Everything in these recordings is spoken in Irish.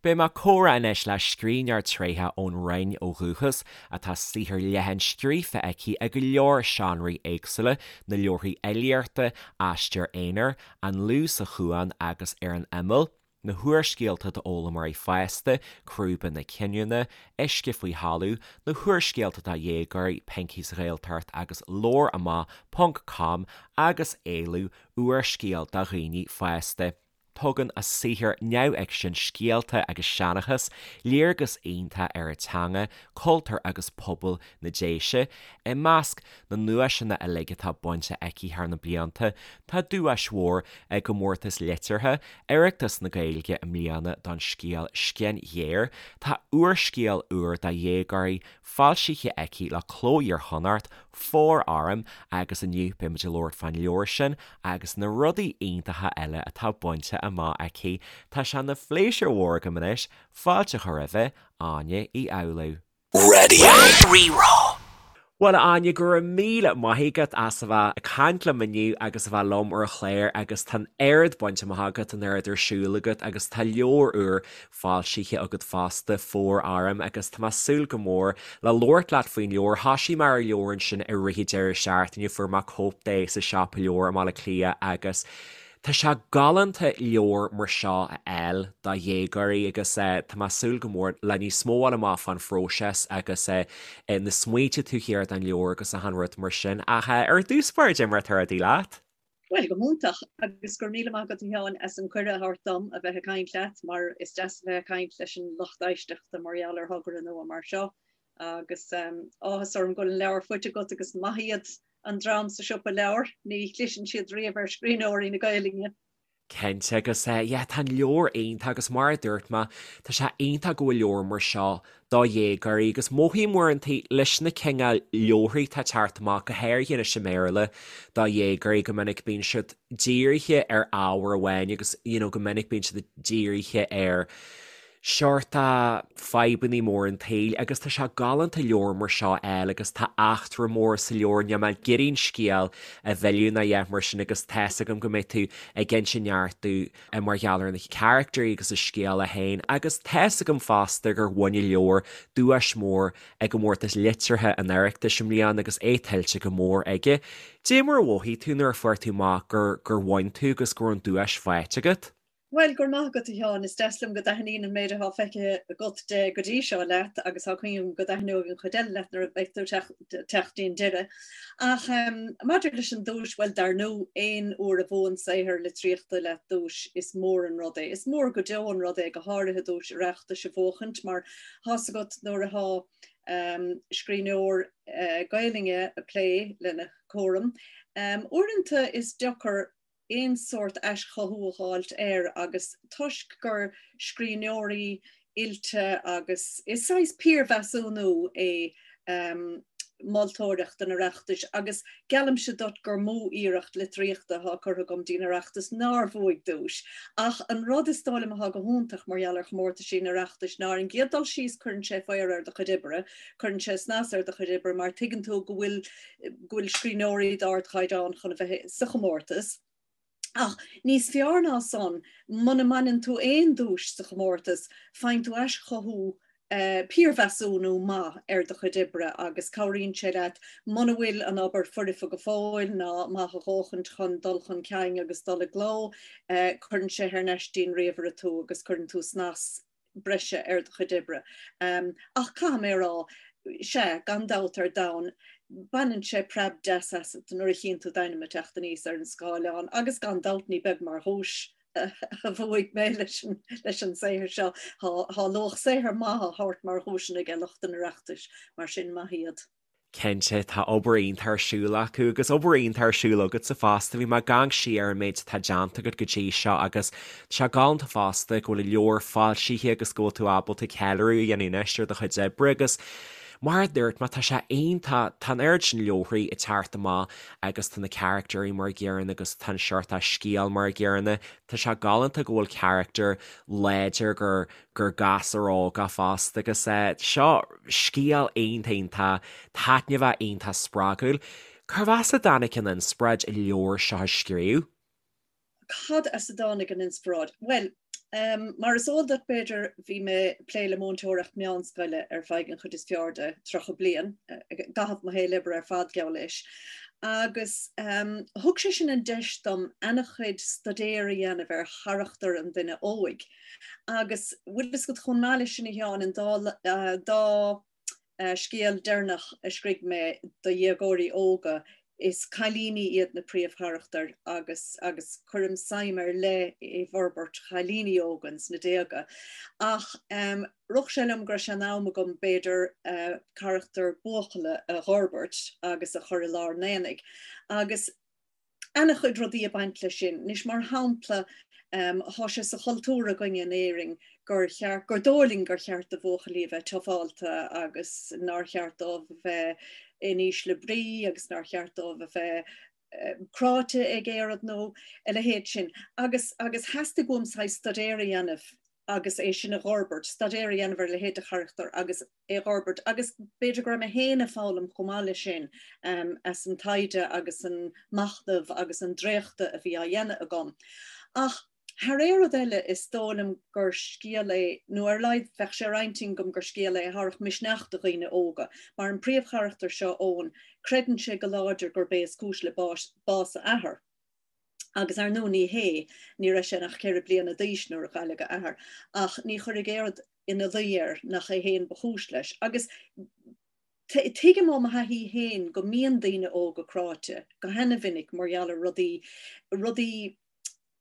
Beidh mé ag comhrá anois le scríbhneoir tréitheach ón Rinn ó dhúchas, atá saothar leathan scríofa aici i go leor seánraí éagsúla, na leabharthaí fhilíochta, Aistear Aonair, An Liú sa Chuan agus Ar an Imeall, na húrscéalta d'fhoghlaimeoirí fásta, Crúba na Cinniúna, Uisce Faoi Thalamh, na húrscéalta do dhéagóirí, Pinky sa Ghaeltacht agus Labhair Amach Ponc Com agus Éalú, úrscéal do dhaoine fásta. Tugann a saothar neamhfhicsin, scéalta agus seanchas, léargas iontach ar an teanga, cultúr agus pobal na Déise. I measc na nduaiseanna uilig atá bainte aici thar na blianta, tá duais mhór i gcomórtas liteartha Oireachtas na Gaeilge i mbliana don scéal Scian Ghéar. Tá úrscéal úr do dhéagóirí foilsithe aici le Cló Iar-Chonnacht, Fóir Orm, agus inniu beimid ag labhairt fán leabhar sin agus na rudaí iontacha eile atá bainte amach aici. Tá sé ina phléisiúr mhór agam anois fáilte a chur roimhe, Áine Uí Fhoghlú. Raidió Rí-Rá. Bhuel, a Áine, go raibh míle maith agat as a bheith ag caint liom inniu agus a bheith liom ar an chlár agus tá an oiread bainte amach agat, an oiread ar siúl agat agus tá leabhar úr foilsithe agat fosta, Fóir Orm, agus tá mé ag súil go mór le labhairt leat faoin leabhar. Thoisigh mé ar an leabhar ansin i rith an deireadh seachtaine, fuair mé cóip de sa siopa leabhar i mBaile Átha Cliath agus tá sé galánta leabhar mar seo a fháil do dhéagóirí agus tá mé ag súil go mór le níos mó a fháil amach fán phróiseas agus na smaointe taobh thiar den leabhar agus achan rud mar sin. Ach ar dtús báire, cad é mar atá rudaí leat? Bhuel, go hiontach, agus go raibh míle maith agat a Sheáin as an cuireadh a thabhairt dom a bheith ag caint leat, mar is deas a bheith ag caint leis an lucht éisteachta mar gheall ar thogra nua mar seo. Agus áthas orm go bhfuil an leabhar faighte agat agus maith iad an dream sa siopa leabhar, ní chliseann siad riamh ar scríbhneoirí na Gaelainne. Cinnte, agus yeah, tá an leabhar iontach agus mar a dúirt mé, tá sé iontach go bhfuil leabhar mar seo do dhéagóirí agus mothaím uaireanta leis na cineál leabharthaí atá ag teacht amach, go háirithe anois i mBéarla, do dhéagóirí, go minic bíonn siad dírithe ar ábhar amháin agus you know go minic bíonn siad dírithe ar seort fadhbannaí mór an tsaoil agus tá sé galánta leabhar mar seo a fháil agus tá eachtra mór sa leabhar, níl mé ag iarraidh an scéal a mhilleadh ná a dhath mar sin agus tá's agam go mbeidh tú ag inse neart domh mar gheall ar na caractéirí agus an scéal é féin agus tá's agam fosta gur bhain an leabhar duais mhór i gcomórtas liteartha an Oireachtais i mbliana agus é tuillte go mór aige. Dé mar a mhothaigh tú nuair a fuair tú amach gur gur bhain tú agus go raibh an duais faighte agat? Bhuel, go raibh maith agat, a Sheáin. Is deas liom go dtaitníonn an méid atá feicthe agat de go dtí seo leat agus tá cuimhne agam go dtaitneoidh an chuid eile leat nuair a bheidh tú ag teacht dtí'n deireadh. Ach maidir leis an duais, bhuel, dar ndóigh, aon uair a bhuann saothar litríochta leat duais, is mór an rud é. Is mór go deo an rud é, go háirithe duais Oireachtais a bhuachaint, mar tá's agat nuair atá scríbhneoir Gaelainne ag plé lena cúram, uaireanta is deacair aon sórt aischothú a dh'fháilt air agus toisc gur scríbhneoirí oilte agus is saghas piarmheasúnú é moltóireacht an Oireachtais agus geallaimse duit gur mó iarracht litríochta atá curtha agam dtí'n Oireachtas nár bhuaigh duais. Ach an rud is dóigh liom atá go hiontach mar gheall ar chomórtaisí an Oireachtais ná ar an gcéad dul síos cuireann sé faobhar ar do chuid oibre, cuireann sé snas ar do chuid oibre mar tuigeann tú go bhfuil go bhfuil scríbhneoirí d'ardchaighdeán chun a bheith sa chomórtas. Ach níos fearr ná san, muna mbaineann tú aon duais sa chomórtas, faigheann tú aischothú, piarmheasúnú maith ar do chuid oibre agus cabhraíonn sé leat muna bhfuil an obair foirfe go fóill ná maith a dhóthaint chun dul chun cinn agus dul i gcló, cuireann sé thar n-ais dtí'n ríomhaire tú agus cuireann tú snas breise ar do chuid oibre. Ach caithfidh mé a rá, sea, gan dabht ar domhan, baineann sé preab deas asat nuair a chíonn tú d'ainm ag teacht aníos ar an scáileán agus gan dabht ní beag mar dhuais a bhuaigh mé leis an saothar seo. Tá luach saothair maith á thabhairt mar dhuaiseanna ag lucht an Oireachtais, mar sin maith iad. Cinnte, tá obair iontach ar siúl acu agus obair iontach ar siúl agatsa fosta. Bhí mé ag amharc siar ar an méid atá déanta agat go dtí seo agus tá sé galánta fosta go bhfuil an leabhar foilsithe agus go bhfuil tú ábalta ceiliúradh a dhéanamh anois ar do chuid oibre agus mar a dúirt mé, tá sé iontach, tá an oiread sin leabharthaí ag teacht amach agus tá na caractéirí mar an gcéanna agus tá an seort scéal mar an gcéanna. Tá sé galánta go bhfuil carachtar láidir gur gur gasúr óg é fosta agus seo scéal iontach iontach taitneamhach iontach spreagúil. Cérbh as a dtáinig an inspioráid an leabhar seo a scríobh? Cad as a dtáinig an inspioráid? Bhuel, Mar is eol duit b'fhéidir, bhí mé ag plé le múinteoireacht meánscoile ar feadh an chuid is fearr de 30 bliain, i gcaitheamh mo shaol oibre ar fad, geall leis, agus thug sé sin an deis dom ana-chuid staidéir a dhéanamh ar charachtar an duine óig. Agus bhfuil fhios agat, chomh maith leis sin a Sheáin, an dá scéal deireanach a scrígh mé do dhéagóirí óga, is cailíní iad na príomhcharachtair agus agus cuirim suim ar leith i bhforbairt chailíní óga ins na déaga. Ach rith sé liom go raibh sé in am agam b'fhéidir carachtar buachalla a dh'fhorbairt agus a chur i lár an aonaigh. Agus ana-chuid rudaí ag baint leis sin. Anois, mar shampla, thá sé sa chultúr againne in Éirinn gur cheart, gur dóigh linn gur cheart do bhuachaillí a bheith tufálta agus nár cheart dóibh a bheith in ísle brí agus nár cheart dóibh a bheith cráite ag aon rud nó a leithéid sin. Agus, agus theastaigh uaim saghas staidéar a dhéanamh agus é sin a dh'fhorbairt, staidéar a dhéanamh ar a leithéid de charachtar agus é a dh'fhorbairt agus b'fhéidir go raibh mé féin ag foghlaim chomh maith leis sin as an taighde agus an machnamh agus an dréachtadh a bhí á dhéanamh agam. Ach thar aon rud eile is dóigh liom gur scéal é, nó ar a laghad bheadh sé ar intinn agam gur scéal é a thabharfadh misneach do dhaoine óga, mar an príomhcharachtar seo, Eoin, creideann sé go láidir gurb é is cúis le bás a athar. Agus ar ndóigh ní hé, ní raibh sé ach 4 bliana d'aois nuair a cailleadh a athair, ach ní chuirfeadh aon rud ina luí air nach é féin ba chúis leis. Agus tuigim ó mo thaithí féin go mbíonn daoine óga cráite go hana-mhinic mar gheall ar rudaí, rudaí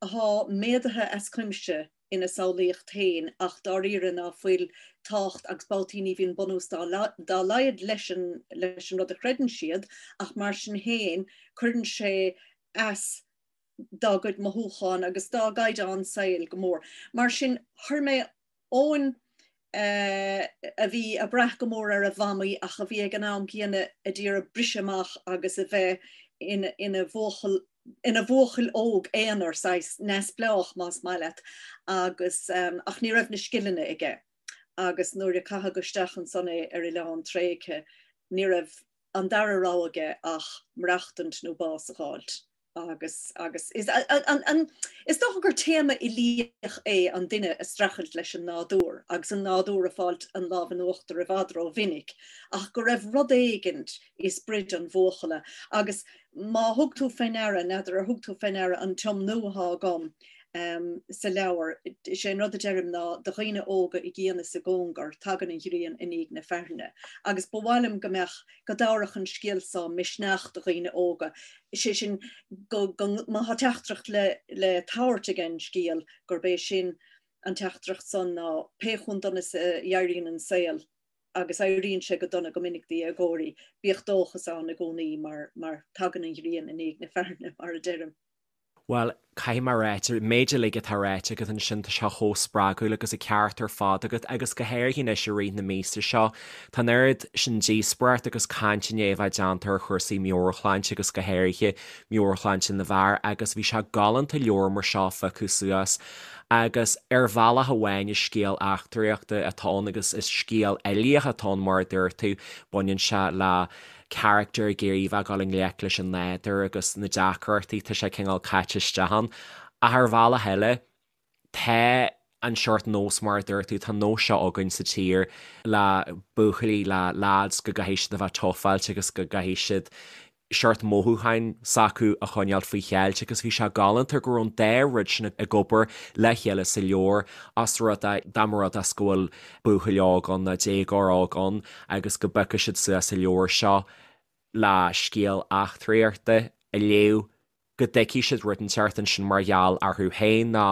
athá méadaithe as cuimse ina samhlaíocht féin ach dáiríre ná fuil tábhacht agus babhtaí ní bhíonn bunús dá laghad leis an leis an rud a chreideann siad ach mar sin féin cuireann sé as dá gcuid mothúchán agus dá gcaighdeán saoil go mór. Mar sin chuir mé Eoin a bhí ag brath go mór ar a mhamaí ach a bhí ag an am céanna a d'iarraidh briseadh amach agus a bheith ina bhuachaill ina bhuachaill óg aonair, saghas neamhspleách más maith leat, agus ach ní raibh na scileanna aige agus nuair a caitheadh isteach ansan é ar oileán tréigthe ní raibh an dara rogha aige ach maireachtaint nó bás a dh'fháilt. Agus, agus, is, an, an, is dócha gur téama uilíoch é an duine ag streachailt leis an nádúr agus an nádúr ag fáilt an lámh in uachtar i bhfad ró-mhinic, ach go raibh rud éigint i sprid an bhuachalla. Agus má thug tú fé ndeara, n'fheadar ar thug tú fé ndeara an tiomnú athá agam sa leabhar, is é an rud a deirim ná do dhaoine óga i gcian is i gcóngar, tagann an ghrian i ndiaidh na fearthainne. Agus ba mhaith liom go mbeadh, go dtabharfadh an scéal so misneach do dhaoine óga, is é sin, go, go, má thá teachtaireacht le, le tabhairt ag an scéal, gurb é sin an teachtaireacht san ná pé chomh dona is a éiríonn an saol, agus éiríonn sé go dona go minic do dhéagóirí, bíodh dóchas ann i gcónaí mar, mar tagann an ghrian i ndiaidh na fearthainne, mar a deirim. Bhuel, caithfidh mé a ráit, an méid uilig atá ráite agat ansin, tá sé chomh spreagúil agus an ceart ar fad agat agus go háirithe anois i rith na míosa seo, tá an oiread sin díospóireacht agus caint i ndiaidh a bheith déanta ar chúrsaí meabhairshláinte agus go háirithe meabhairshláinte na bhfear agus bhí sé galánta leabhar mar seo a phiocadh suas agus ar bhealach amháin is scéal eachtraíochta atá ann agus is scéal uilíoch atá ann mar a dúirt tú, baineann sé le carachtar ag iarraidh a bheith ag dul i ngleic leis an nádúr agus na deacrachtaí tá sé cineál caite isteach ann. Ach ar bhealach eile, tá an seort nós mar a dúirt tú, tá an nós seo againn sa tír le buachaillí, le lads go gcaithfidh siad a bheith tufáilte agus go gcaithfidh siad seort mothúcháin s'acu a choinneáil faoi cheilt agus bhí sé galánta go raibh an dá rud sin ag obair le chéile sa leabhar os rud é dá mba rud é go bhfuil buachaill óg ann nó déagóir óg ann agus go bpiocfaidh siad suas an leabhar seo le scéal eachtraíochta a léamh, go dtuigfidh siad rud inteacht ansin mar gheall orthu féin nó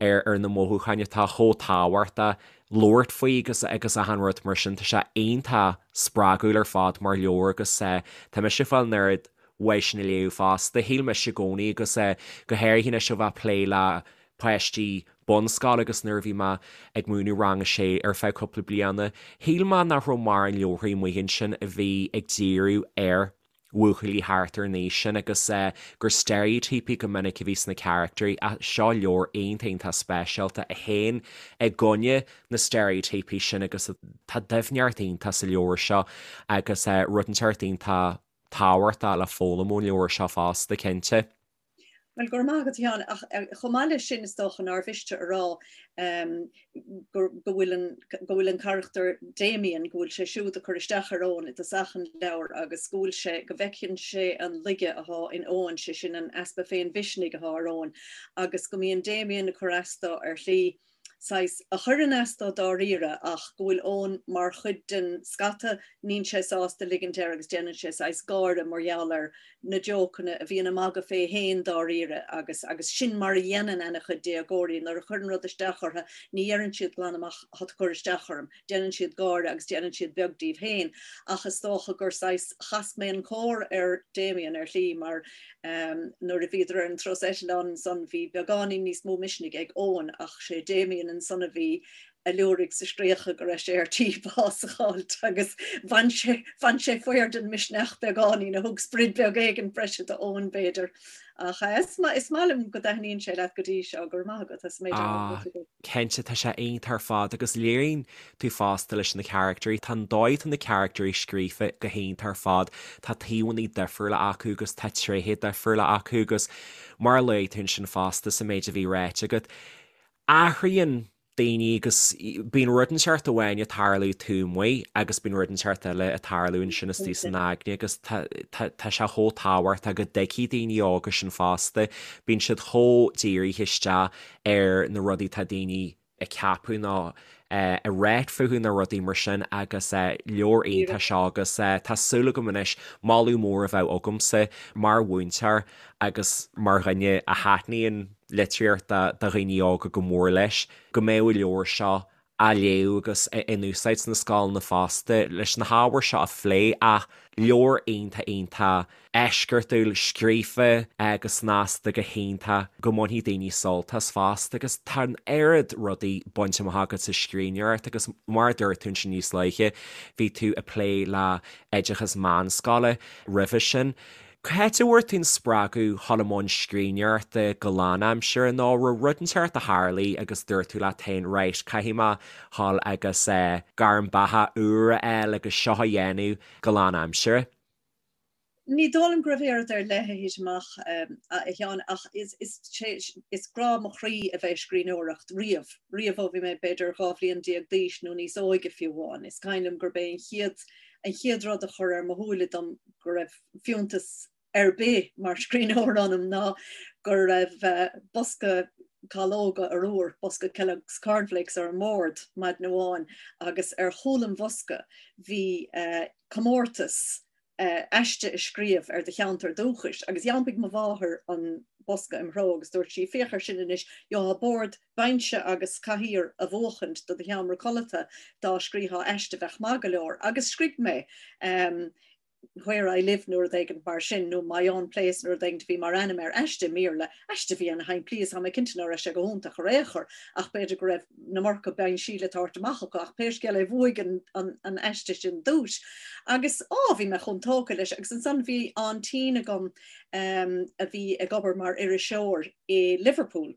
ar ar na mothúcháin atá chomh tábhachtach labhairt faoi agus agus achan rud mar sin. Tá sé iontach spreagúil ar fad mar leabhar agus tá mise ag fáil an oiread uaidh sin a léamh fosta. Shíl mise i gcónaí agus go háirithe anois ó bheith ag plé le páistí bunscoile agus nuair a bhí mé ag múineadh rang a sé ar feadh cúpla bliana, shíl mé nach raibh mórán leabharthaí amuigh ansin a bhí ag díriú ar bhuachaillí thart ar an aois sin agus gur steiréitíopaí go minic a bhí sna caractairí ach seo leabhar iontach iontach speisialta a théann i gcoinne na steiréitíopaí sin agus tá doimhneacht iontach sa leabhar seo agus rud inteacht iontach tábhachtach le foghlaim ón leabhar seo fosta, cinnte. Bhuel, go raibh maith agat, a Sheáin, ach chomh maith leis sin is dócha nár mhiste a rá go bhfuil an, go bhfuil an carachtar Damien, go bhfuil sé siúd ag cur isteach ar Eoin i dtosach an leabhair agus go bhfuil sé, go bhfeiceann sé an laige athá in Eoin, sé sin an easpa féinmhisnigh athá ar Eoin agus go mbíonn Damien ag cur as dó ar shlí saghas, a chuireann as dó dáiríre ach go bhfuil Eoin mar chuid den scata, níl sé sásta ligint air agus déanann sé saghas gáire mar gheall ar na jócanna a bhíonn ag magadh fé fhéin dáiríre agus agus sin mar a dhéanann ana-chuid déagóirí nuair a chuireann rud isteach orthu ní dheireann siad glan amach tá tú ag cur isteach orm, déanann siad gáire agus déanann siad beag díobh féin ach is dócha gur saghas chas mé an cór ar Damien ar shlí mar nuair a bhíodar ar an turas eitleáin ansan bhí beagáinín níos mó misnigh ag Eoin ach sé Damien ansan a bhí a liúraigh 's a scréachaigh go raibh sé ar tí bás a dh'fháilt agus bhain sé bhain sé faor den misneach beagáinín a thug sprid beag éigin breise do Eoin b'fhéidir. Ach is maith liom go dtaitníonn sé leat go dtí seo, go raibh maith agat as an méid a dúirt. Cinnte, tá sé iontach ar fad agus léiríonn tú fosta leis na caractairí, tá an dóigh atá na caractairí scríofa go hiontach ar fad, tá taobhanna difriúla acu agus tá tréithe difriúla acu agus mar a luaigh tú ansin fosta sa méid a bhí ráite agat, athraíonn daoine agus bíonn rud inteacht amháin ag tarlú taobh amuigh agus bíonn rud inteacht eile ag tarlú ansin istigh san aigne agus tá tá sé chomh tábhachtach go dtuigfidh daoine óga sin fosta, bíonn siad chomh dírithe isteach ar na rudaí atá daoine ag ceapadh nó ag ráit fúthu nó rudaí mar sin agus leabhar iontach seo agus tá súil agam anois moladh mór a bheadh agamsa mar mhúinteoir agus mar dhuine a thaitníonn litríocht do dhaoine óga go mór leis go mbeadh an leabhar seo á léamh agus in úsáid sna scoileanna fosta leis na hábhair seo a phlé ach leabhar iontach iontach eisceachtúil scríofa go snasta go hiontach go mbainfidh daoine sult as fosta agus tá an oiread rudaí bainte amach agat sa scríbhneoireacht agus mar a dúirt tú ansin níos luaithe bhí tú ag plé le oideachas meánscoile roimhe sin. Cá háit a bhfuair tú an spreagadh dhul i mbun scríbhneoireachta go lánaimseartha nó raibh rud inteacht a tharlaigh agus dúirt tú leat féin right, caithfidh mé dhul agus gairm beatha úr a fháil agus seo a dhéanamh go lánaimseartha? Ní dóigh liom go raibh aon rud ar leith a thit amach, a Sheáin, ach is, is, is grá mo chroí a bheith ag scríbhneoireacht riamh, riamh ó bhí mé b'fhéidir 12 bhliain d'aois nó níos óige fiú amháin. Is cuimhin liom gurb é an chéad, an chéad rud a chuir ar mo shúile dom go raibh fiúntas ar bith mar scríbhneoir ionam ná go raibh bosca calóga arbhair, bosca Kellogg's Cornflakes ar an mbord maidin amháin agus ar chúl an bhosca bhí comórtas aiste a scríobh ar do cheantar dúchais agus d'iompaigh mo mháthair an bosca im threo agus dúirt sí, féach air sin anois, gheofá bord, binse agus cathaoir a bhuachaint do do sheomra codlata dá scríofá aiste bheadh maith go leor. Agus scrígh mé Where I Live nó rud éigin mar sin, nó My Own Place nó rud éigin a bhí mar ainm ar aiste i mBéarla, aiste a bhí ana-shimplí is tá mé cinnte ná raibh sé go hiontach ar aon chor ach b'fhéidir go raibh an iomarca binsí le tabhairt amach acu ach pé scéal é bhuaigh an an aiste sin duais agus á bhí mé chomh tógtha leis agus ansan bhí aintín agam a bhí ag obair mar iriseoir i Liverpool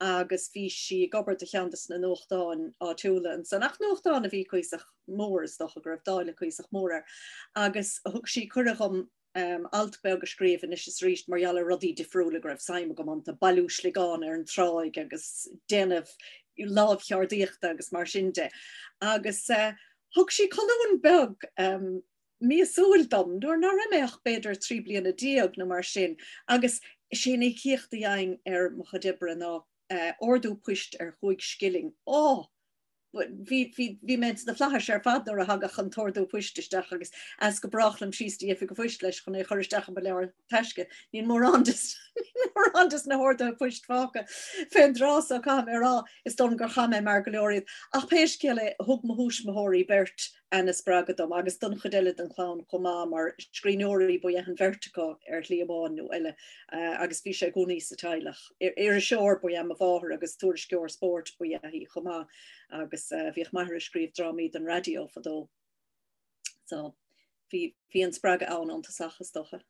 agus bhí sí ag obair do cheann de na nuachtáin áitiúla ansan ach nuachtán a bhí cuíosach mór is dócha go raibh dáileadh cuíosach mór air agus thug sí cuireadh dhom alt beag a scríobh anois is arís mar gheall ar rudaí difriúla go raibh suim agam iontu, bailiú sliogán ar an tráigh agus déanamh lámhcheardaíochta agus mar sin de. Agus thug sí colún beag míosúil dom nuair ná raibh mé ach b'fhéidir 13 bliana nó mar sin agus sé an íocaíocht a gheibhinn ar mo chuid oibre ná ordú poist ar chúig scilling. Ó! Bhí, bhí, bhí mé sna flaithis ar fad nuair a thagadh an t-ordú poist isteach agus as go brách liom síos dtí oifig an phoist leis chun é a chur isteach i mo leabhar taisce. Níl mórán des, níl mórán des na horduithe poist fágtha fén dtráth so caithfidh mé a rá, is dóigh liom gur chaith mé mear go leor iad. Ach pé scéal é, thug mo thuismitheoirí beirt ana-spreagadh dom agus don chuid eile den chlann chomh maith mar scríbhneoirí ba ea an bheirt acu ar shlí amháin nó eile agus bhí sé i gcónaí sa teaghlach. Iriseoir ba ea mo mháthair agus tuairisceoir spóirt ba ea í chomh maith agus bhíodh m'athair ag scríobh drámaí don raidió fadó. So bhí bhí an spreagadh ann ón tosach is dócha.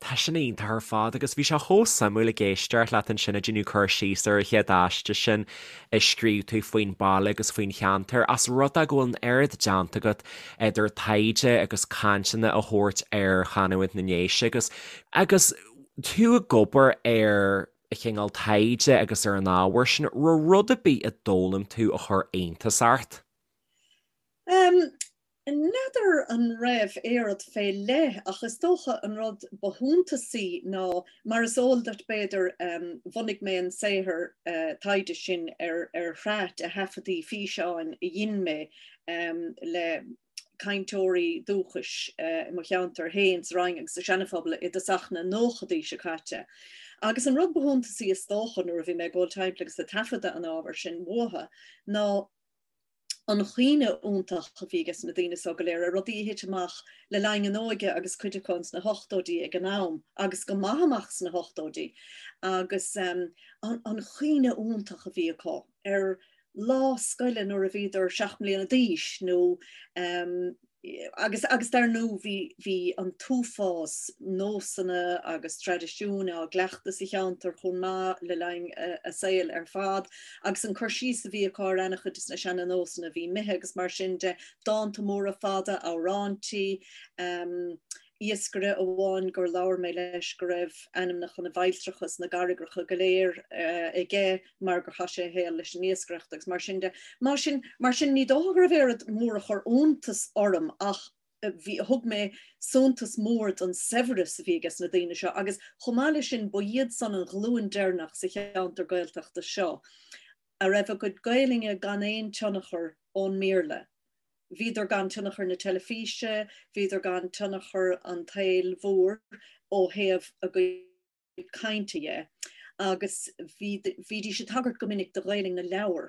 Tá sin iontach ar fad agus bhí sé chomh suimiúil ag éisteacht leat ansin ag déanamh cur síos ar an chéad aiste sin a scríobh tú faoin baile agus faoin cheantar, as rud é go bhfuil an oiread déanta agat idir taighde agus cainteanna a thabhairt ar chanúint na nDéise agus agus. Tú ag obair ar chineál taighde agus ar an ábhar sin, raibh rud ar bith a d'fhoghlaim tú a chuir iontas ort? N'fheadar an raibh aon rud fé leith ach is dócha an rud ba shuntasaí ná, mar is eol duit b'fhéidir, bhunaigh mé an saothar taighde sin ar shraith de thaifeadtaí físeáin a dhein mé le cainteoirí dúchais i mo cheantar féin sa Rinn agus sa Seana-Phobal i dtosach na nóchadaí seo caite. Agus an rud ba shuntasaí is dócha nuair a bhí mé ag dul timpeall agus ag taifeadadh an ábhair sin uathu ná an chuimhne iontach a bhí ages na daoine so go léir ar rudaí a thit amach le linn a n-óige agus cuid acu ins na hochtóidí ag an am agus go maith amach sna hochtóidí agus an chuimhne iontach a bhí acu ar lá scoile nuair a bhíodar 7 mbliana d'aois nó Agus, agus dar ndóigh, bhí, bhí an t-uafás nósanna agus traidisiúin á gcleachtadh sa cheantar chomh maith le linn a saoil ar fad, agus an cur síos a bhí acu ar ana-chuid de na seana-nósanna a bhí imithe agus mar sin de, dánta móra fada, amhráintí, iascaire amháin gur labhair mé leis go raibh ainmneacha na bhfailltreacha is na gcarraigreacha go léir aige mar gur chaith sé a shaol leis an iascaireacht agus mar sin de. Mar sin, mar sin ní dócha go raibh aon rud mór a chuir iontas orm ach bhí, thug mé suntas mór don saibhreas a bhí ages na daoine seo agus chomh maith leis sin ba iad san an ghlúin deireanach sa cheantar Gaeltachta seo a raibh a gcuid Gaelainne gan aon tionchar ón mBéarla. Bhíodar gan tionchar na teilifíse, bhíodar gan tionchar an tsaoil mhóir ó thaobh a gcuid cainte dhe, agus bhídís ag tagairt go minic do Ghaelainn na leabhar.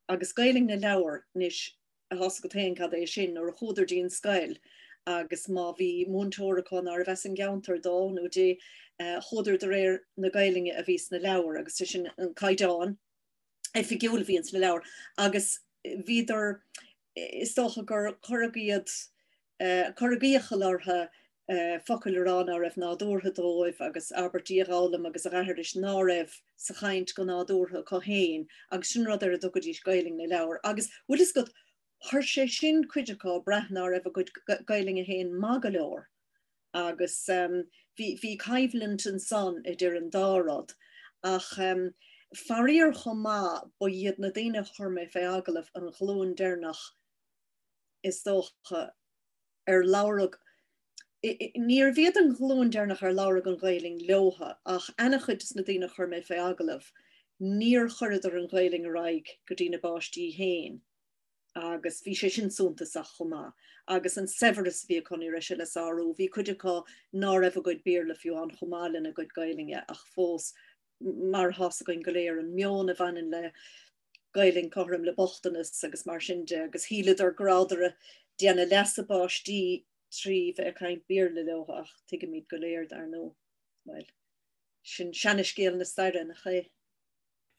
Agus Gaelainn na leabhar, anois, tá's agat féin cad é sin, nuair a chuadar dtí an scoil agus má bhí múinteoir acu nárbh as an gceantar dó nó di, chuadar de réir na Gaelainne a bhí sna leabhair agus sé sin an caighdeán. oifigiúil a bhí ins na leabhair agus bhíodar, is dócha gur cuireadh iad, cuireadh iachall orthu focail a rá ná raibh nádúrtha dóibh agus abairtí a dh'fhoghlaim agus a dh'aithris ná raibh sa chaint go nádúrtha acu féin agus sin rud ar a dtugaidís Gaelainn na leabhar agus bhfuil fhios agat, chuir sé sin cuid acu ag brath ná raibh a gcuid Gaelainne féin maith go leor. Agus bhí, bhí coimhlint ansan idir an dá rud. Ach faraor chomh maith, ba iad na daoine a chuir mé fé agallamh an ghlúin deireanach is dócha ar labhradh, níorbh iad an ghlúin deireanach ar labhradh an Ghaelainn leotha, ach ana-chuid des na daoine a chuir mé fé agallamh, níor chuireadar an Ghaelainn ar aghaidh go dtí na bpáistí féin. agus bhí sé sin suntasach chomh maith. Agus an saibhreas a bhí acu, ní raibh sé le sárú. Bhí cuid acu ná raibh a gcuid Béarla fiú amháin chomh maith lena gcuid Gaelainne ach fós, mar atá's againn go léir, an meon a bhaineann le Gaelainn cothrom le bochtanas agus mar sin de, agus shíleadar go rabhadar ag déanamh leas a bpáistí trí bheith ag caint Béarla leo ach tuigimid go léir, dar ndóigh, bhuel, sin seanascéal na staire, nach é?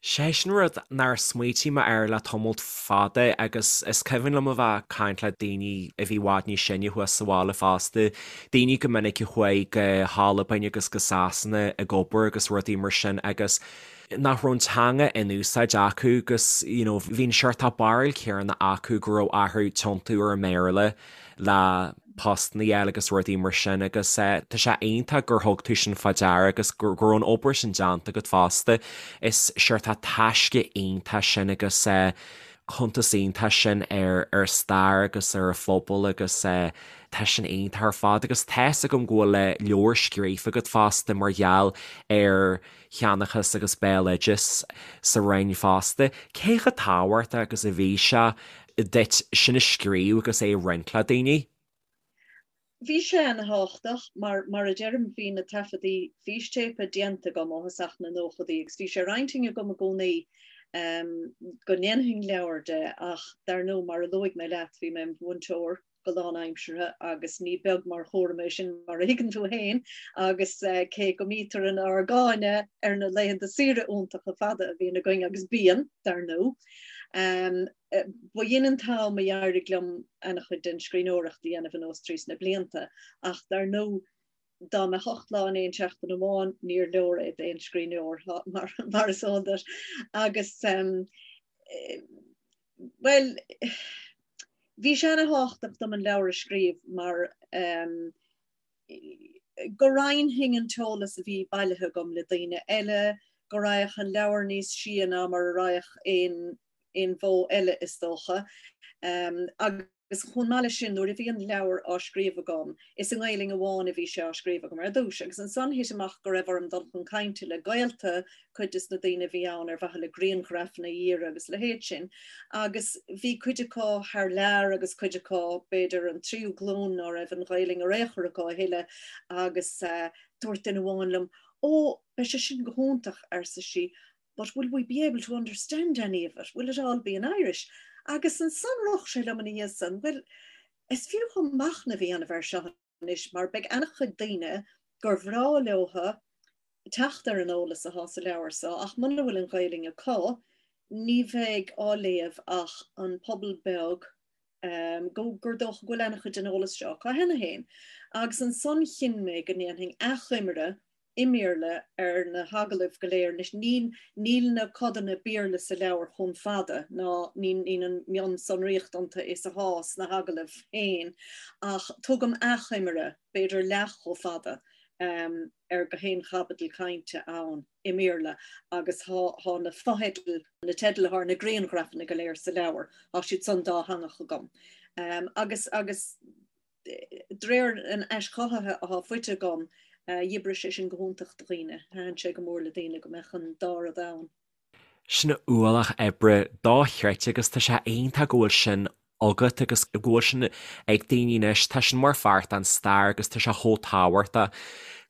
Sé sin rud nár smaoitigh mé air le tamalt fada agus is cuimhin liom a bheith ag caint le daoine a bhí i bhfad níos sine thuas sa bhaile fosta, daoine go minic a chuaigh go hAlbain agus go Sasana ag obair agus rudaí mar sin agus nach raibh an teanga in úsáid acu agus you know bhí an seort barúil céanna acu go raibh orthu tiontú ar an mBéarla le postanna a fháil agus rudaí mar sin agus tá sé iontach gur thug tú sin fá deara agus go raibh an obair sin déanta agat fosta. Is seort taisce iontach sin agus cuntas iontach sin ar ar stair agus ar an phobal agus tá sin iontach ar fad agus tá's agam go bhfuil leabhar scríofa agat fosta mar gheall ar sheanchas agus béaloideas sa Rinn fosta. Cé chomh tábhachtach agus a bhí sé duit sin a scríobh agus é a roinnt le daoine? Bhí sé ana-thábhachtach mar, mar a deirim, bhí na taifeadtaí fístéipe déanta agam ó thosach na nóchadaí agus bhí sé ar intinn agam i gcónaí go ndéanfainn leabhar de ach dar ndóigh, mar a luaigh mé leat, bhí mé i mo mhúinteoir go lánaimseartha agus ní beag mar chúram é sin mar a thuigeann tú féin agus cé go mbítear inár gcáineadh ar na laethanta saoire iontacha fada a bhíonn againn agus bíonn, dar ndóigh. Ba shin an t-am a d'éirigh liom ana-chuid den scríbhneoireacht a dhéanamh anuas trí sna blianta ach dar ndóigh dá mbeadh 8 lá in aon seachtain amháin níor leor é d'aon scríbhneoir mar is eol duit agus bhuel bhí sé ana-thábhachtach dom an leabhar a scríobh mar. Go roinnfinn an t-eolas a bhí bailithe agam le daoine eile, go raghadh an leabhar níos sia ná mar a raghadh aon aon mhodh eile is dócha. Agus chomh maith leis sin, nuair a bhí an leabhar á scríobh agam, is i nGaelainn amháin a bhí sé á scríobh agam ar dtús, agus ansan thit amach go raibh orm dul chun cainte le gaolta cuid des na daoine a bhí ann ar mhaithe le grianghrafanna a iarraidh agus a leithéid sin. Agus bhí cuid acu thar lear agus cuid acu, b'fhéidir an tríú glúin ná raibh an Ghaelainn ar aon chor acu a thuilleadh agus dúirt duine amháin liom, 'Ó, beidh sé sin go hiontach, arsa sí, but will we be able to understand any of it? Will it all be in Irish? Agus ansan rith sé liom ina dhiaidh san, bhuel, is fiú dhom machnamh a dhéanamh air seo anois mar beidh an-chuid daoine gur bhreá leotha teacht ar an eolas athá sa leabhar so ach muna bhfuil an Ghaelainn acu ní bheidh á léamh ach an pobal beag go gur dócha go bhfuil an-chuid den eolas seo acu cheana féin. Agus ansan chinn mé go ndéanfainn achoimre i mBéarla ar na hagallaimh go léir. Anois níl níl na codanna Béarla sa leabhar chomh fada ná níl níl an mhionsonraíocht iontu is athá sna hagallaimh féin ach tugaim achoimre, b'fhéidir leath chomh fada, ar gach aon chaibidil cainte ann i mBéarla agus thá na fotheidil, na teidil athá ar na grianghrafanna go léir sa leabhar, thá siad san dátheangach agam. Agus agus d'réir an aischothaithe athá faighte agam, dh'oibrigh sé sin go hiontach do dhaoine, thaitin sé go mór le daoine go mbeadh an dá rud ann. Sin ualach oibre dochreidte agus tá sé iontach go bhfuil sin agat agus go bhfuil sin ag daoine anois. Tá sin mar pháirt den stair agus tá sé chomh tábhachtach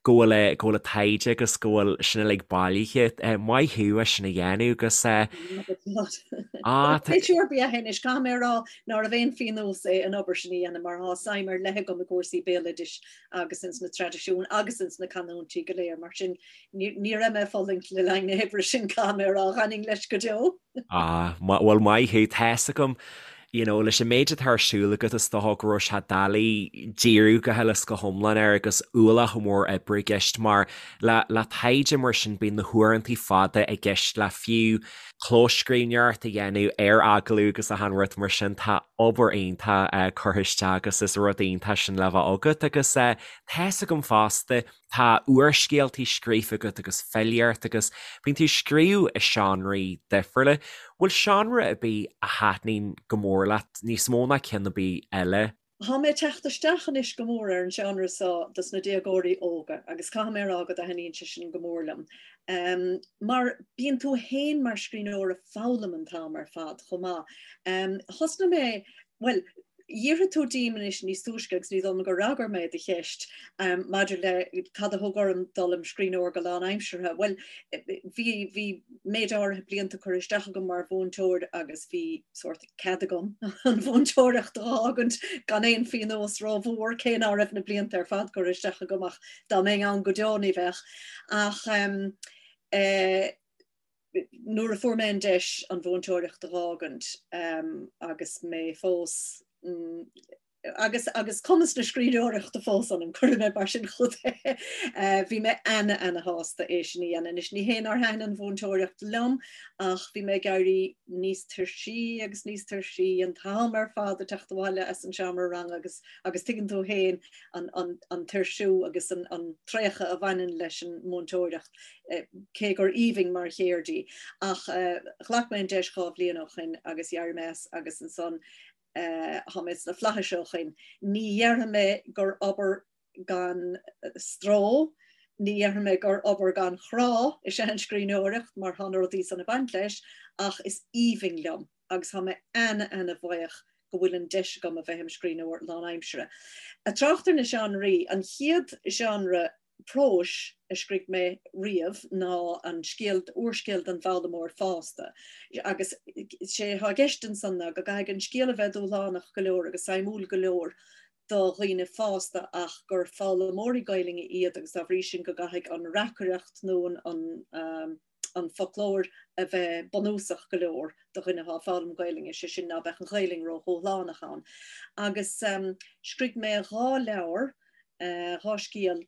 go bhfuil go bhfuil an taighde agus go bhfuil sin uilig bailithe. Maith thú as sin a dhéanamh agus Ah Pléisiúr ab ea é anois, caithfidh mé a rá nárbh aon phionós é an obair sin a dhéanamh mar thá suim ar leith agam i gcúrsaí béaloidis agus ins na traidisiúin agus ins na canúintí go léir, mar sin ní raibh mé ag fulaingt le linn na hoibre sin, caithfidh mé a rá, d'fhanfainn leis go deo. Ah, bhuel maith thú, tá's agam, you know, leis an méid atá ar siúl agat is dócha go raibh sé doiligh díriú go huile is go hiomlán air agus ualach mór oibre i gceist mar le, le taighde mar sin bíonn na huaireantaí fada i gceist le fiú clóscríbhneoireacht a dhéanamh ar agallamh agus achan rud mar sin, tá obair iontach curtha isteach agus is rud iontach sin le bheith agat agus tá's agam fosta Tá úrscéaltaí scríofa agat agus filíocht agus bíonn tú ag scríobh i seánraí difriúla. Bhfuil seánra ar bith a thaitníonn go mór leat níos mó ná ceann ar bith eile? Tá mé ag teacht isteach anois go mór ar an seánra seo dos na déagóirí óga agus caithfidh mé a rá go dtaitníonn sé sin go mór liom. Mar bíonn tú fhéin mar scríbhneoir ag foghlaim an t-am ar fad chomh maith. Thosnaigh mé, bhuel, D'fhiafraigh tú díom anois níos túisce agus ní dóigh liom gur fhreagair mé do cheist maidir le cad a thug orm dul im scríbhneoir go lánaimseartha. Bhuel, bhí, bhí méid áirithe blianta curtha isteach agam mar mhúinteoir agus bhí sórt cead agam an mhúinteoireacht a dh'fhágaint gan aon phionós rómhór, cé ná raibh na blianta ar fad curtha isteach agam ach dá mbeinn ann go deo ní bheadh. Ach eh, nuair a fuair mé an deis an mhúinteoireacht a dh'fhágaint agus mé fós agus agus cumas na scríbhneoireachta fós ionam, cuirfidh mé mar sin chugat é, bhí mé ana ana shásta é sin a dhéanamh. Anois ní hé nár thaitin an mhúinteoireacht liom ach bhí mé ag éirí níos tuirsí agus níos tuirsí an t-am ar fad ag teacht abhaile as an seomra ranga agus agus tuigeann tú féin an an an tuirsiú agus an an traochadh a bhaineann leis an múinteoireacht. cé gur aoibhinn mar cheird í. Ach ghlac mé an deis 2 bhliain ó shoin agus d'éirigh mé as agus ansan thá mé sna flaithis ó shoin. Ní dhéarfaidh mé gur obair gan stró, ní dhéarfaidh mé gur obair gan chrá is ea an scríbhneoireacht mar thá na rudaí san ag baint leis ach is aoibhinn liom agus thá mé ana-ana-bhuíoch go bhfuil an deis agam a bheith im scríbhneoir lánaimseartha. Ag trácht ar na seánraí, an chéad genre próis a scrígh mé riamh ná an scéal, úrscéal don bhfoghlaimeoir fásta. Agus sé atá i gceist ansan ná go gcaithfidh an scéal a bheith dúshlánach go leor agus suimiúil go leor do dhaoine fásta ach gur foghlaimeoirí Gaelainne iad agus dá bhrí sin go gcaithfidh an reacaireacht nó an an foclóir a bheith bunúsach go leor do dhuine atá ag foghlaim Gaelainne, sé sin ná beadh an Ghaelainn ródhúshlánach ann. Agus scrígh mé 2 leabhar, 2 scéal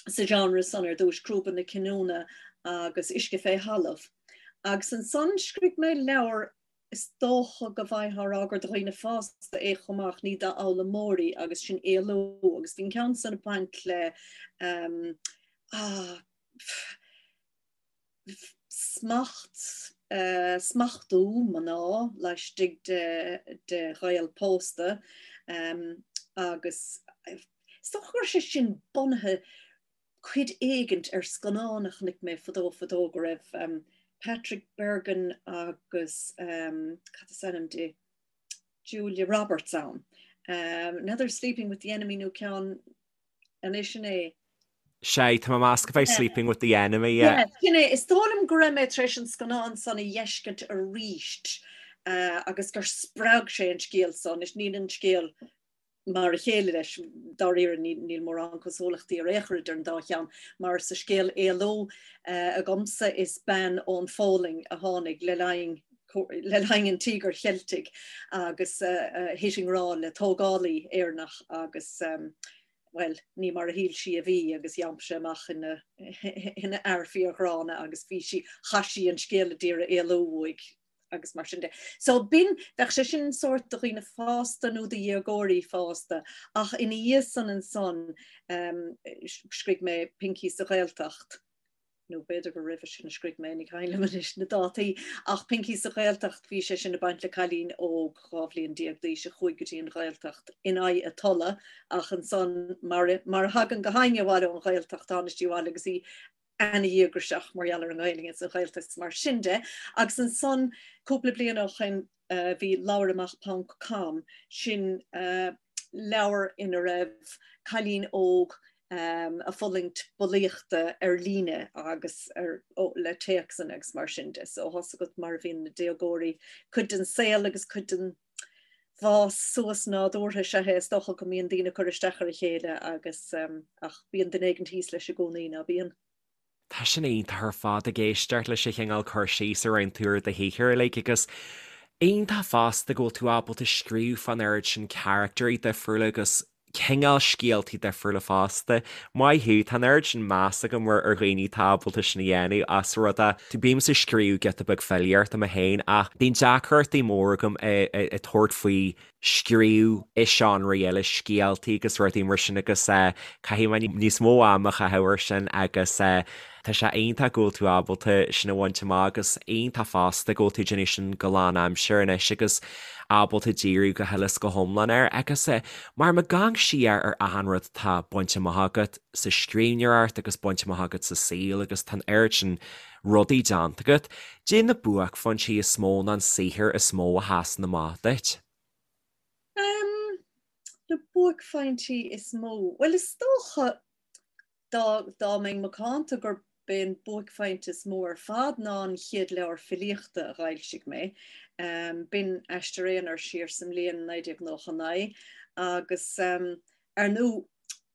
sa genre san ar dtúis, Crúba na Cinniúna agus Uisce fé Thalamh. Agus ansan scrígh mé leabhar. Is dócha go bhfaightheá a rá gur do dhaoine fásta é chomh maith ach ní d'fhoghlaimeoirí agus sin Éalú agus bhí an ceann san ag baint le ah, smacht, smachtú mná laistigh de de ghaol pósta agus is dócha go raibh sé sin bunaithe cuid éigint ar scannán a chonaic mé fadó fadó go raibh Patrick Bergin agus cad is ainm di? Julia Roberts ann. Another Sleeping with the Enemy nó ceann anois sin é. Sea, tá mé ag meas gurb é Sleeping with the Enemy, yeah. Yeah, sin é. Is dóigh liom go raibh mé tar éis an scannán san a dh'fheiscint aríst agus gur spreag sé an scéal so. Anois níl an scéal mar a chéile leis, dáiríre, níl mórán cosúlachtaí ar aon chor idir an dá cheann, mar sa scéal Éalú agamsa is bean ón Pholainn a tháinig le linn le linn an Tíogair Cheiltigh agus thit i ngrá le tógálaí Éireannach agus bhuel, ní mar a shíl sí a bhí agus d'iompaigh sé amach ina ina fhear fíorghránna agus bhí sí, chaith sí an scéal a d'iarraidh éalú uaidh agus mar sin de. So b'in, bheadh sé sin sórt do dhaoine fásta nó do dhéagóirí fásta ach ina dhiaidh san ansan scrígh mé Pincí sa Ghaeltacht, nó b'fhéidir gur roimhe sin a scrígh mé, ní cuimhin liom anois na dátaí, ach Pincí sa Ghaeltacht, bhí sé sin ag baint le cailín óg 12 bhliain d'aois a chuaigh go dtí an Ghaeltacht in aghaidh a tola ach ansan mar mar a thagann gach éinne abhaile ón Ghaeltacht, tháinig sí abhaile agus í ana-dhíograiseach mar gheall ar an nGaelainn is an Ghaeltacht is mar sin de. Agus ansan cúpla bliain ó shoin bhí Labhair Amach ponc com, sin leabhar ina raibh cailín óg ag fulaingt bulaíochta ar líne agus ar, ó, le téacsanna agus mar sin de. So tá's agat mar a bhíonn na déagóirí, cuid den saol agus cuid den bhfás suas nádúrtha is ea é, is dócha go mbíonn daoine ag cur isteach ar a chéile agus ach bíonn duine éigin thíos leis i gcónaí, ná bíonn? Tá sin iontach ar fad ag éisteacht leis an chineál cur síos a rinne tú ar do shaothar uilig agus iontach fosta go bhfuil tú ábalta scríobh fán oiread sin caractairí difriúla agus cineál scéaltaí difriúla fosta. Maith thú, tá an oiread sin meas agam ar dhaoine atá ábalta sin a dhéanamh as rud é. Bímse ag scríobh giota beag filíochta mé féin ach bíonn deacrachtaí mór agam ag tabhairt faoi scríobh i seánraí eile, scéaltaí agus rudaí mar sin agus caithfidh mé níos mó ama a chaitheamh air sin agus tá sé iontach go bhfuil tú ábalta sin a bhaint amach agus iontach fosta go bhfuil tú ag déanamh sin go lánaimseartha anois agus ábalta díriú go huile is go hiomlán air agus mar má amharcann siar ar achan rud atá bainte amach agat sa scríbhneoireacht agus bainte amach agat sa saol agus tá an oiread sin rudaí déanta agat, caidé na buaicphointí is mó nó an saothar is mó a sheasann amach duit? Em, na buaicphointí is mó? Bhuel, is dócha dá, dá mbeinn macánta gurb é an buaicphointe is mó ar fad ná an chéad leabhar filíochta a dh'fhoilsigh mé. Em, b'in Aistear Aonair siar sa mbliain 1999 agus, em, ar ndóigh,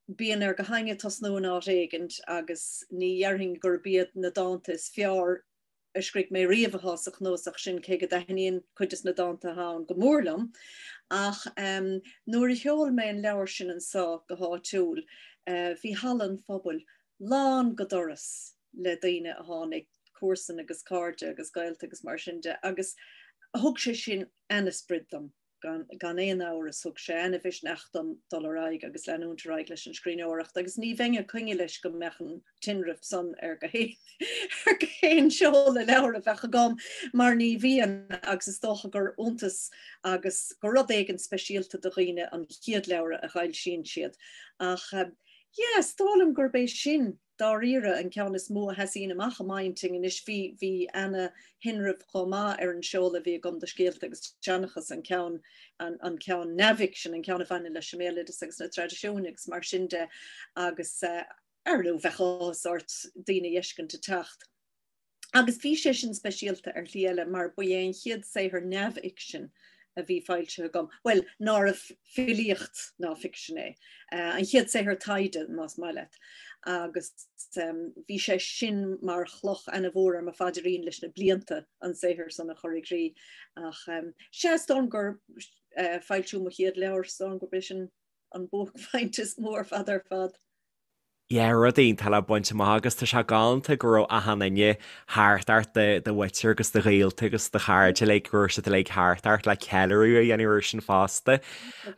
Bíonn ar gach éinne tosnú in áit éigint agus ní dhéarfainn gurb iad na dánta is fearr a scrígh mé riamh atá sa chnuasach sin, cé go dtaitníonn cuid des na dánta atá ann go mór liom. Ach nuair a sheol mé an leabhar sin anso go háitiúil, bhí halla an phobail lán go doras le daoine a tháinig, comharsain agus cairde agus gaolta agus mar sin de, agus thug sé sin ana-sprid dom. Gan aon amhras, thug sé ana-mhisneach dom dul ar aghaidh agus leanúint ar aghaidh leis an scríbhneoireacht agus ní bheinn ag coinne leis go mbeadh an tinreamh san ar gach aon seoladh leabhar a bheadh agam mar ní bhíonn agus is dócha gur iontas agus gur rud éigin speisialta do dhaoine an chéad leabhar a fhoilsíonn siad. Ach yeah, is dóigh liom gurb é sin dáiríre, an ceann is mó a sheasaíonn amach i m'intinn anois. Bhí, bhí ana-thinreamh chomh maith ar an seoladh a bhí agam do Scéalta agus Seanchas, an ceann, an, an ceann neamhfhicsin, an ceann a bhaineann leis an mbéaloideas agus na traidisiúin agus mar sin de agus ar ndóigh bheadh áthas ort daoine a fheiscint ag teacht. Agus bhí sé sin speisialta ar shlí eile mar ba é an chéad saothar neamhfhicsin a bhí foilsithe agam, bhuel, nárbh filíocht ná ficsean é, an chéad saothar taighde, más maith leat. Agus bhí sé sin mar chloch ana-mhór ar mo phaidrín leis na blianta an saothar san a chur i gcrích. Ach sea, is dóigh liom gur foilsiú mo chéad leabhair, is dóigh liom gurb é sin an buaicphointe is mó ar fad ar fad. Yeah, rud iontach le baint amach agus tá sé galánta go raibh achan duine thart ort, do mhuintir agus do ghaolta agus do chairde uilig, go raibh siad uilig thart ort le ceiliúradh a dhéanamh air sin fosta.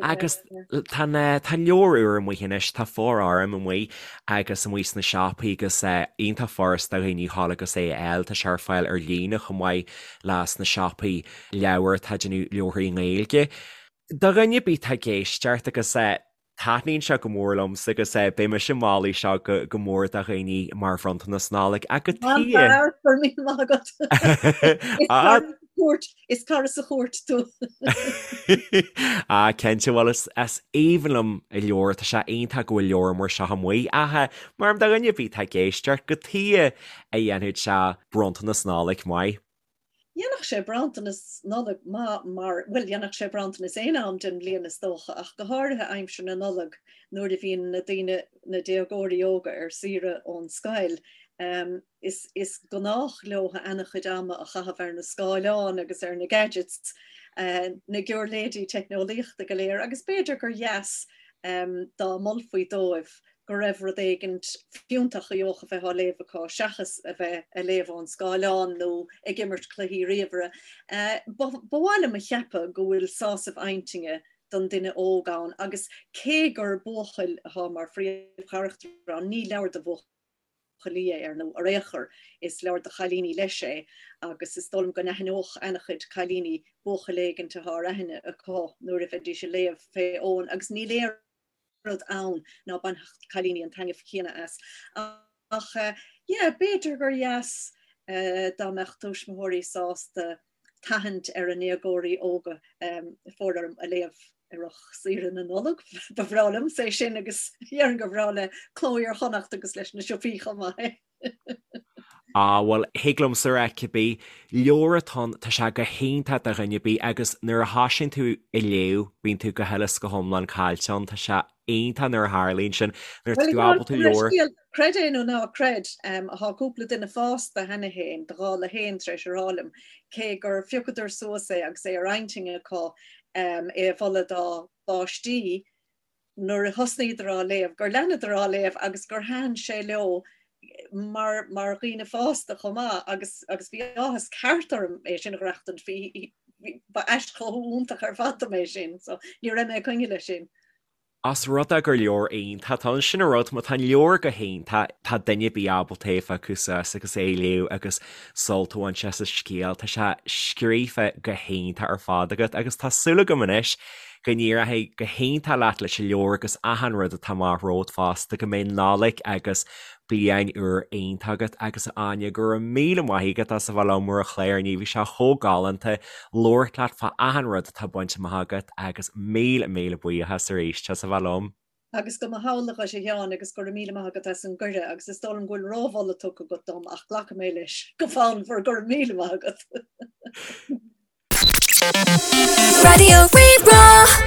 Agus tá an tá an leabhar úr amuigh anois, tá Fóir Orm amuigh agus amuigh sna siopaí agus iontach furast do dhaoine a ghabháil agus é a fháil, tá sé ar fáil ar líne chomh maith le sna siopaí leabhar atá ag déanamh leabharthaí i nGaeilge. Do dhuine ar bith atá ag éisteacht agus taitníonn sé go mór liomsa agus beidh mise ag moladh seo go mór do dhaoine mar bhronntanas Nollag ach cad chuige. An-fhear, go raibh míle maith agat. Is cara sa chúirt, is cara sa chúirt tú. Ah, cinnte, bhuel is aoibhinn liom an leabhar, tá sé iontach go bhfuil leabhar mar seo amuigh ach mar do dhuine ar bith atá ag éisteacht, cad chuige a dhéanfadh sé bronntanas Nollag maith. Dhéanfadh sé bronntanas Nollag maith mar, bhuel, dhéanfadh sé bronntanas aon am den bhliain is dócha, ach go háirithe aimsir na Nollag nuair a bhíonn na daoine, na déagóirí óga ar saoire ón scoil. Is, is gnách leo ana-chuid ama a chaitheamh ar na scáileáin agus ar na gadgets, na giúirléidí teicneolaíochta go léir agus b'fhéidir gur dheas dá molfaí dóibh go raibh rud éigint fiúntach a gheobhadh a bheith á léamh acu seachas a bheith a léamh ón scáileán nó ag imirt cluichí ríomhaire. Ba mhaith liom a cheapadh go bhfuil sásamh intinne don duine óg ann agus cé gur buachaill atá mar phríomhcharachtar ann, ní leabhar do bhuachaillí é ar ndóigh ar aon chor, is leabhar do chailíní leis é agus is dóigh liom go n-aithneodh ana-chuid cailíní buachaill éigint atá ar aithne acu nuair a bheidís ag léamh fé Eoin agus níl aon rud ann ná bainfeadh cailíní an taitneamh céanna as. Ach yeah, b'fhéidir gur dheas dá mbeadh tuismitheoirí sásta tathant ar a ndéagóirí óga Fóir Orm a léamh i rith saoire na Nollag. Ba bhreá liomsa é sin agus déarfainn gur bhreá le Cló Iar-Chonnacht agus leis na siopaí chomh maith. Á, bhuel, thig liomsa a rá cibé leabhar atá ann, tá sé go hiontach do dhuine ar bith agus nuair a thosaíonn tú ag léamh, bíonn tú go huile is go hiomlán caillte ann, tá sé iontach nuair a tharlaíonn sin, nuair atá tú ábalta leabhar. Creid é nó ná creid, thá cúpla duine fásta cheana féin, do dhála féin, tar éis a rá liom, cé gur phiocadar suas é agus é ar intinn acu é a mholadh dá bpáistí, nuair a thosnaíodar á léamh, gur leanadar á léamh agus gur thaitin sé leo mar mar dhaoine fásta chomh maith agus agus bhí áthas ceart orm é sin a dh'aireachtaint, bhí ba aischothú iontach ar fad dom é sin, so ní raibh mé ag coinne leis sin. Os rud é gur leabhar iontach atá ann, sin an rud, má tá an leabhar go hiontach, tá duine ar bith ábalta é a phiocadh suas agus é a léamh agus sult a bhaint as an scéal. Tá sé scríofa go hiontach ar fad agat agus tá súil agam anois Go n-éireoidh go hiontach leat leis an leabhar agus achan rud atá amach romhat fosta, go mbeidh Nollaig agus bliain úr iontach agat agus a Áine, go raibh míle maith agat as a bheith liom ar an chlár inniu, bhí sé chomh galánta labhairt leat fá achan rud atá bainte amach agat agus míle míle buíochas arís as a bheith liom. Agus go mba shamhlaigh dhuit a Sheáin agus go raibh míle maith agat as an gcuireadh agus is dóigh liom go bhfuil rómholadh tugtha agat dom ach glacfaidh mé leis go fonnmhar, go raibh míle maith agat. Raidió Rí-Rá.